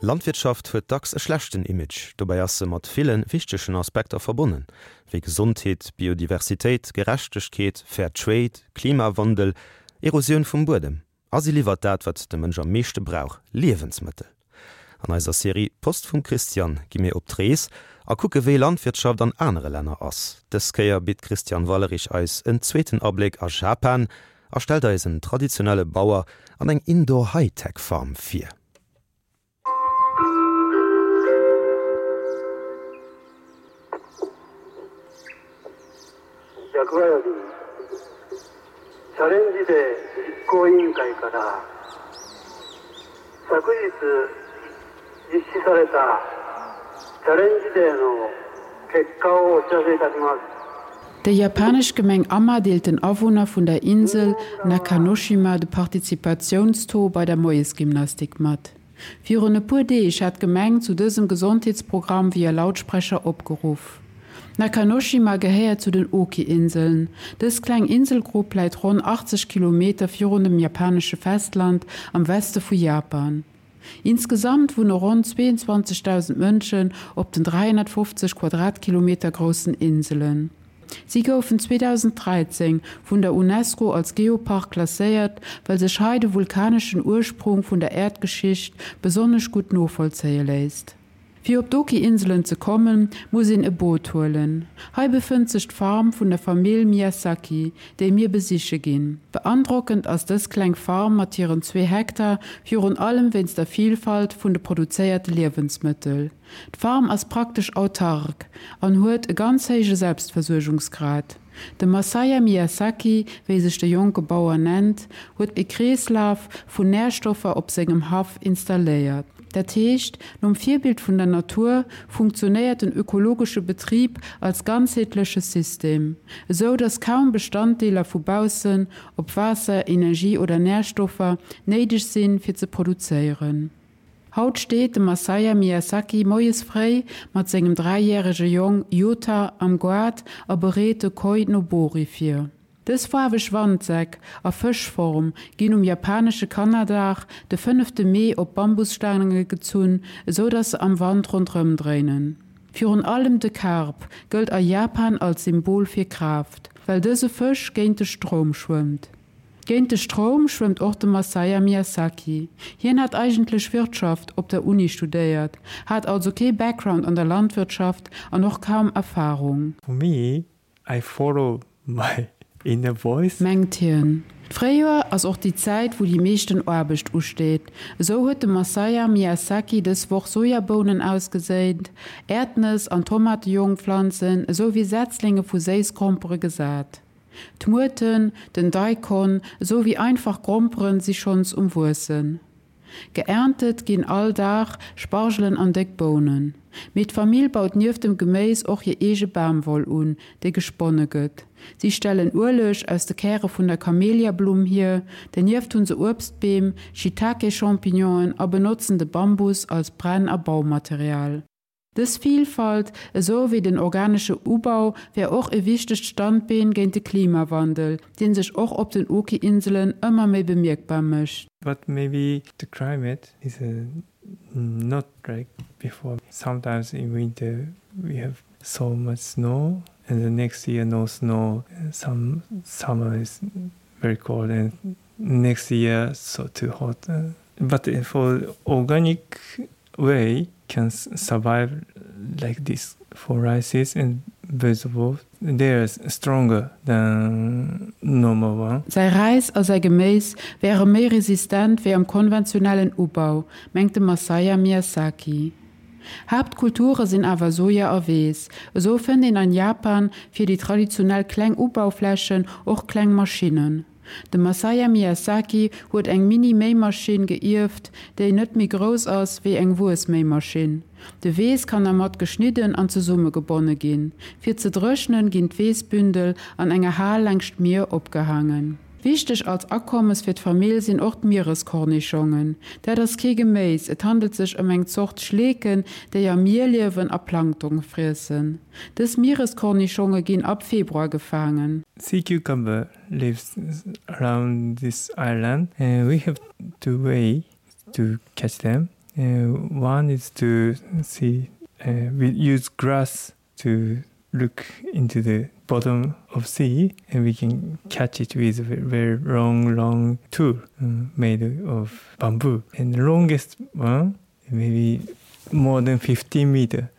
Landwirtschaft huet dacks e schlechten Image, dobäi ass se mat ville wichtegen Aspekter verbonnen, wéi Gesondheet, Biodiversitéit, Gerechtegkeet, Fair Trade, Klimawandel, Erosioun vum Buedem. A si liwwert dat, wat de Mënsch am meeschte brauch, Liewensmëttel. An eiser Serie Post vum Christian gi mir op d'Rees a kucke wéi Landwirtschaft an anere Länner ass. Dës Kéier bitt d'Christiane Wallerich eis en zweeten Abléck a Japan a stellt eis en traditionelle Bauer an eng Indoor-Hightech-Farm vir. Déi japanesch Gemeng Ama deelt den Awunner vun der Insel Nakanoshima de Participatiounstaux bei der Moiesgymnastik mat. Virun e puer Deeg hat d'Gemeng zu dësem Gesondheetsprogramm via Lautsprecher opgeruff. Nakanoshima gehéiert zu den Oki-Inseln. Dës kleng Inselgrupp läit ronn 80 Kilometer virun dem japanesche Festland am Weste vu Japan. Insgesamt wunne ronn 22.000 Mënschen op den 350 Quadratkilometer groussen Inselen. Si goufen 2013 vun der Unesco als Geopark klasséiert, well sech hei de vulkaneschen Ursprung vun der Äerdgeschicht besonnesch gutt novollzéie léisst. Fir op d'Oki-Inselen ze kommen, muss een e Boot huelen. Hei befënnt sech d'Farm vun der Famill Miyasaki, déi mir besiche ginn. Beandrockend ass dës kleng Farm mat hiren zwee Hektar virun allem wéinst der Vilfalt vun de produzéierte Liewensmëttel. D'Farm ass praktesch autark an huet e ganz héije Selbstversuergungsgrad. De Masaya Miyasaki, wéi sech de jonke Bauer nennt, huet e Kreeslaf vun Närstoffer op sengem Haff installéiert. Dat heescht, nom Virbild vun der Natur funktionéiert den ökologesche Betrib als ganzheetleche System, esou datt kaum Bestanddeeler vu baussen, ob Waasser, Energie oder Närstoffer, néideg sinn, fir ze produzéieren. Haut steet de Masaya Miyasaki moies fréi mat sengem dräijärege Jong Yuta am Goart a bereet de Koi Nobori vir. Dës faarweg Wandsäck a Fëschform ginn um japanesche Kannerdag, de fënnefte Mee, op Bambusstaange gezunn, esou datt se am Wand ronderëm dréinen. Virun allem de Karp gëllt a Japan als Symbol fir Kraaft, well dëse Fësch géint de Stroum schwëmmt. Géint de Stroum schwëmmt och de Masaya Miyasaki. Hien hat eigentlech Wirtschaft op der Uni studéiert, hat also kee Background an der Landwirtschaft an och kaum Erfarung. For me, I follow my inner voice. Mengt hien. D'Fréijoer ass och déi Zäit, wou déi meeschten Aarbecht usteet. Esou huet de Masaya Miyasaki dës Woch Sojabounen ausgeséint, Äerdnëss an Tomatejongpflanzen esou wéi Setzlinge vu Séissgrompere gesat. D'Muerten, den Daikon esou wéi einfach Gromperen si schonns um Wuessen. Geerntet ginn all Dag Spargelen an déck Bounen. Mee d'Famill baut nieft dem Geméis och hir eege Bamwoll un, déi gesponne gëtt. Si stellen Ueleg aus de Käre vun der Kameliablumm hier, dernieft hu se Uebstbeem, Shiitake-Champignonen a benotzen de Bambus als Brenn a Baumaterial. Dës Vilfalt, esou wéi den organesche Ubau, wär och e wichtegt Standbeen géint de Klimawandel, dee sech och op den Oki-Inselen ëmmer méi bemierkbar mécht. But maybe the climate is not like before. Sometimes in winter we have so much snow and the next year no snow. Some summer is very cold and next year so too hot. But for organic way can survive like this for rices and vegetables. They are stronger than normal one. Säi Räis a säi Geméis wäre méi resistent wéi am konventionellen Ubau, mengt de Masaya Miyasaki. Haaptkulture sinn awer Soja a Weess. Esou fënnt een an Japan fir déi traditionell kleng Ubauflächen och kleng Maschinnen. De Masaya Miyasaki huet eng Mini-Méimaschinn geierft, déi net méi grouss ass wéi eng Wuessméimaschinn. De Weess kann dermat geschnidden an zesummegebonne ginn. Fir ze dréchnen, ginn d'Weessbündel an enger Hal laangscht d'Mier opgehaangen. Wichteg als Akommes fir d'Famill sinn och d'Miereskornischongen. Dat ass kee Geméis, et handelt sech ëm eng Zort Schleeken, déi am Mier liewen a Plankton friessen. Dës Miereskornischonge ginn ab Februar gefaangen. Sea cucumber lives around this island and we have two way to catch them. One is to see uh, we use grass to look into the bottom of sea and we can catch it with a very long long tool uh, made of bamboo and the longest one maybe more than 15 meter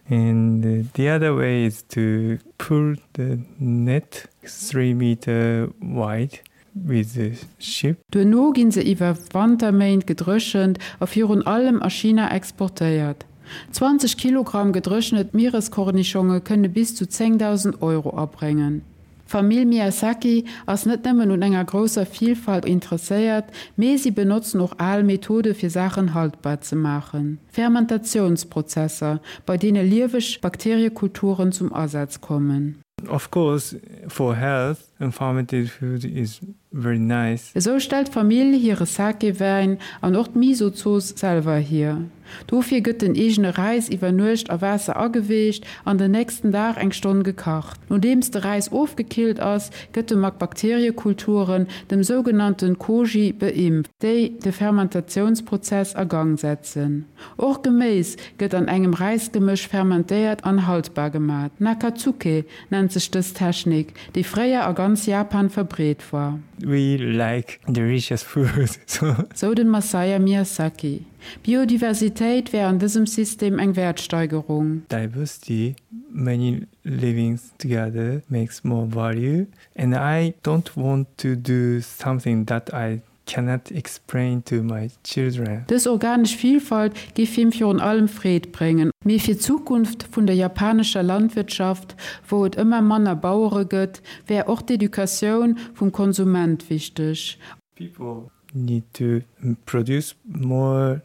and the other way is to pull the net 3 meter wide with the ship. Duerno ginn se iwwer Wanterméint gedréchent a virun allem a China exportéiert. 20 Kilogramm gedréchnet Miereskornischonge kënne bis zu 10.000 Euro abréngen. D'Famill Miyazaki ass net nëmmen un enger grousser Vilfalt interesséiert, mee si benotzen och al Methode fir Saachen haltbar ze maachen, Fermentatiounsprozesser, bei deene lieweg Bakteriekulturen zum Asaz kommen. Of course for health and fermented food is very nice. Esou stellt d'Famill hire Sake-Wäin an och d'Miso-Zooss selwer hier. Dofir gëtt den eegene Räis iwwer Nuecht a Waasser ageweecht an den nächsten Dag eng Stonn gekacht. Nodeems de Räis ofgekillt ass, gëtt e mat Bakteriekulturen, dem sougenannten Koji, beimpft, déi de Fermentatiounsprozess a Gang setzen. Och Geméis gëtt an engem Räisgemësch fermentéiert an haltbar gemat. Nakatsuke nennt sech dës Technik, déi fréier a ganz Japan verbreet war. We like delicious food, so. Sou den Masaya Miyazaki. Biodiversitéit wär an dësem System eng Wäertsteigerung. Diversity, many living together makes more value and I don't want to do something that I cannot explain to my children. Dës organesch Vilfalt géif him virun allem Freed bréngen. Mee fir d'Zukunft vun der japanescher Landwirtschaft, wou et ëmmer manner Bauere gëtt, wär och d'Educatioun vum Konsument wichteg. People need to produce more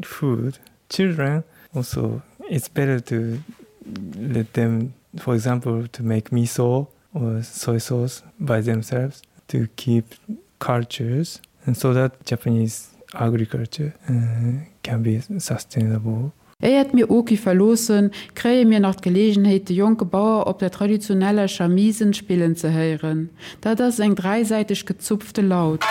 food. Children also it's better to let them, for example, to make miso or soy sauce by themselves to keep cultures and so that Japanese agriculture uh, can be sustainable. Éiert mir Oki verloossen, kréie mir nach d'Geleegenheet de jonke Bauer op der traditioneller Shamisen spillen ze héieren. Dat ass eng dräisäiteg gezupfte Laut.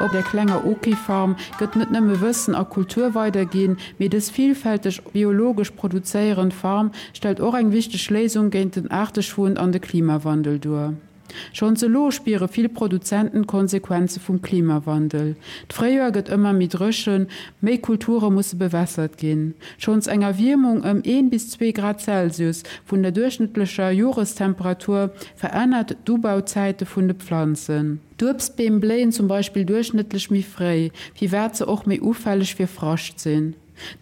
Op der klenger Oki-Farm gëtt net nëmme Wëssen a Kultur weiderginn, mee dës villfälteg biologesch produzéierend Farm stellt och eng wichteg Léisung géint den Aarteschwund an de Klimawandel duer. Schonns elo spiere vill Produzenten d'Konsequenze vum Klimawandel. D'Fréijoer gëtt ëmmer méi dréchen, méi Kulture musse bewässert ginn. Schonns eng Erwiermung ëm een bis zwee Grad Celsius vun der duerchschnëttlecher Jorestemperatur verännert d'Ubauzäite vun de Pflanzen. D'Uebstbeem bléien zum Beispill duerchschnëttlech méi fréi, firwat se och méi ufälleg fir Frascht sinn.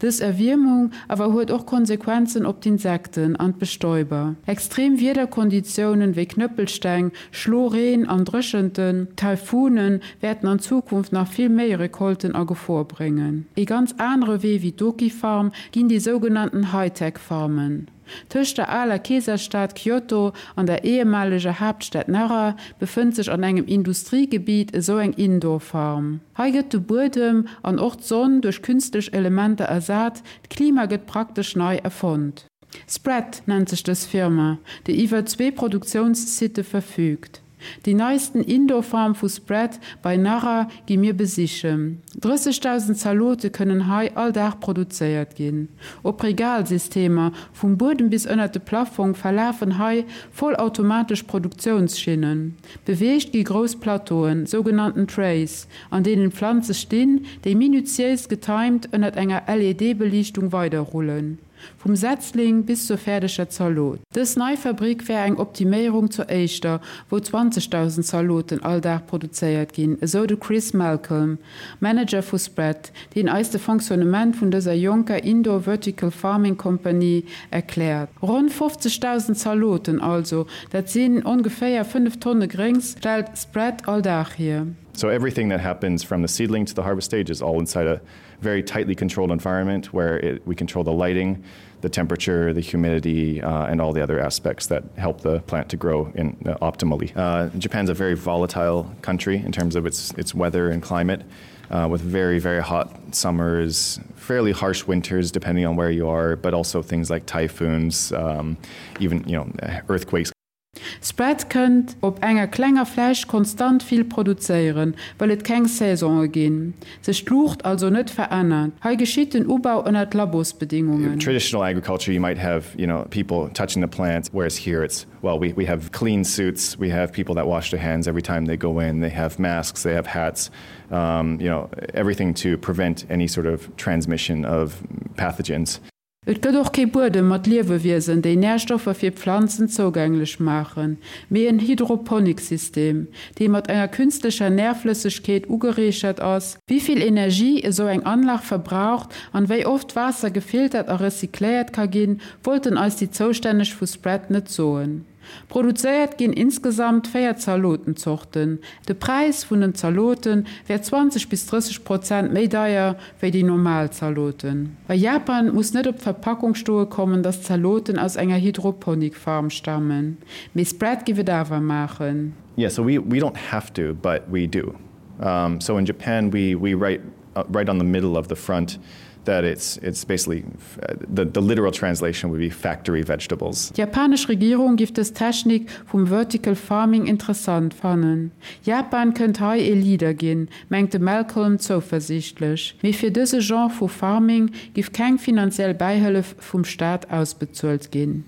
Dës Erwiermung awer huet och Konsequenzen op d'Insekten an d'Bestäuber. Extrem Wiederkonditiounen wéi Knëppelsteng, Schloreen an Dréchenten, Taifunen, wäerten an Zukunft nach vill méi Recolten a Gefor bréngen. Ee ganz anere Wee wéi d'Oki-Farm ginn déi sougenannten Hightech-Farmen. Tëscht der aler Keeserstad Kyoto an der ehemaleger Haaptstad Nara befënnt sech an engem Industriegebiet esou eng Indoor-Farm. Hei gëtt de Buedem an och d'Sonn duerch künstlech Elementer ersat, d'Klima gëtt praktesch nei erfonnt. Spread nennt sech dës Firma, déi iwwer zwee Produktiounssitte verfüügt. Déi neisten Indoor-Farm vu Spread bei Nara gi mir besichen. 30.000 Zalote kënnen hei all Dag produzéiert ginn. Op Regalsystemer, vum Buedem bis ënnert de Plaffong, verlafen hei vollautomatesch Produktiounsschinnen. Beweegt gi grouss Plateauen, sougenannten Trays, an deenen d'Planze stinn, déi minutiéis getimed ënnert enger LED-Beliichtung weiderrullen. Vum Setzling bis zur fäerdeger Zalot. Dës nei Fabrick wär eng Optiméierung zur éischter, wou 20.000 Zaloten all Dag produzéiert ginn, esou de Chris Malcolm, Manager vu Spread, deen eis de Fonctionnement vun dëser jonker Indoor Vertical Farming Company erkläert. Ronn 50.000 Zaloten also, dat sinn ongeféier 5 Tonne Gréngs, stellt Spread all Dag hier. So everything that happens from the seedling to the harvest stage is all inside a. very tightly controlled environment where it, we control the lighting, the temperature, the humidity, uh, and all the other aspects that help the plant to grow in, uh, optimally. Uh, Japan's a very volatile country in terms of its, its weather and climate. Uh, with very, very hot summers, fairly harsh winters depending on where you are, but also things like typhoons, um, even you know, earthquakes. Spread kënnt op enger klenger Fläch konstant vill produzéieren, well et keng Saison'e ginn, sech d'Luucht also net verännert. Hei geschitt den Ubau ënnert Labosbedingungen. Traditional agriculture you might have you know people touching the plants, whereas here it's well we we have clean suits, we have people that wash their hands every time they go in, they have masks, they have hats, um, you know everything to prevent any sort of transmission of pathogens. Et gëtt och kee Buedem mat Liewewiesen, déi Närstoffer fir d'Planzen zougänglech maachen, mee en Hydroponiksystem, dee mat enger künstlecher Närflëssegkeet ugereechert ass. Wéi vill Energie esou eng Anlag verbraucht an wéi oft Waasser gefiltert a recycléiert ka ginn, wollten eis déi Zoustänneg vu Spread net soen. Produzéiert ginn insgesamt 4 Zalotenzorten. De Präis vun den Zalote wär 20 bis 30 Prozent méi deier wéi déi normal Zaloten. A Japan muss net op d'Verpackung stoe kommen, dass d'Zaloten aus enger Hydroponik-Farm stammen. Mee Spread giff et awer maachen. Yeah, so we, we don't have to, but we do. Um, so in Japan we, we write uh, right on the middle of the front that it's, it's basically uh, the, the literal translation would be factory vegetables. D'japanesch Regierung giff dës Technik vum Vertical Farming interessant fannen. Japan kënnt hei ee Leader ginn, mengt de Malcolm zouversiichtlech. Mee fir dëse Genre vu Farming giff keng finanziell Bäihëllef vum Staat ausbezuelt ginn.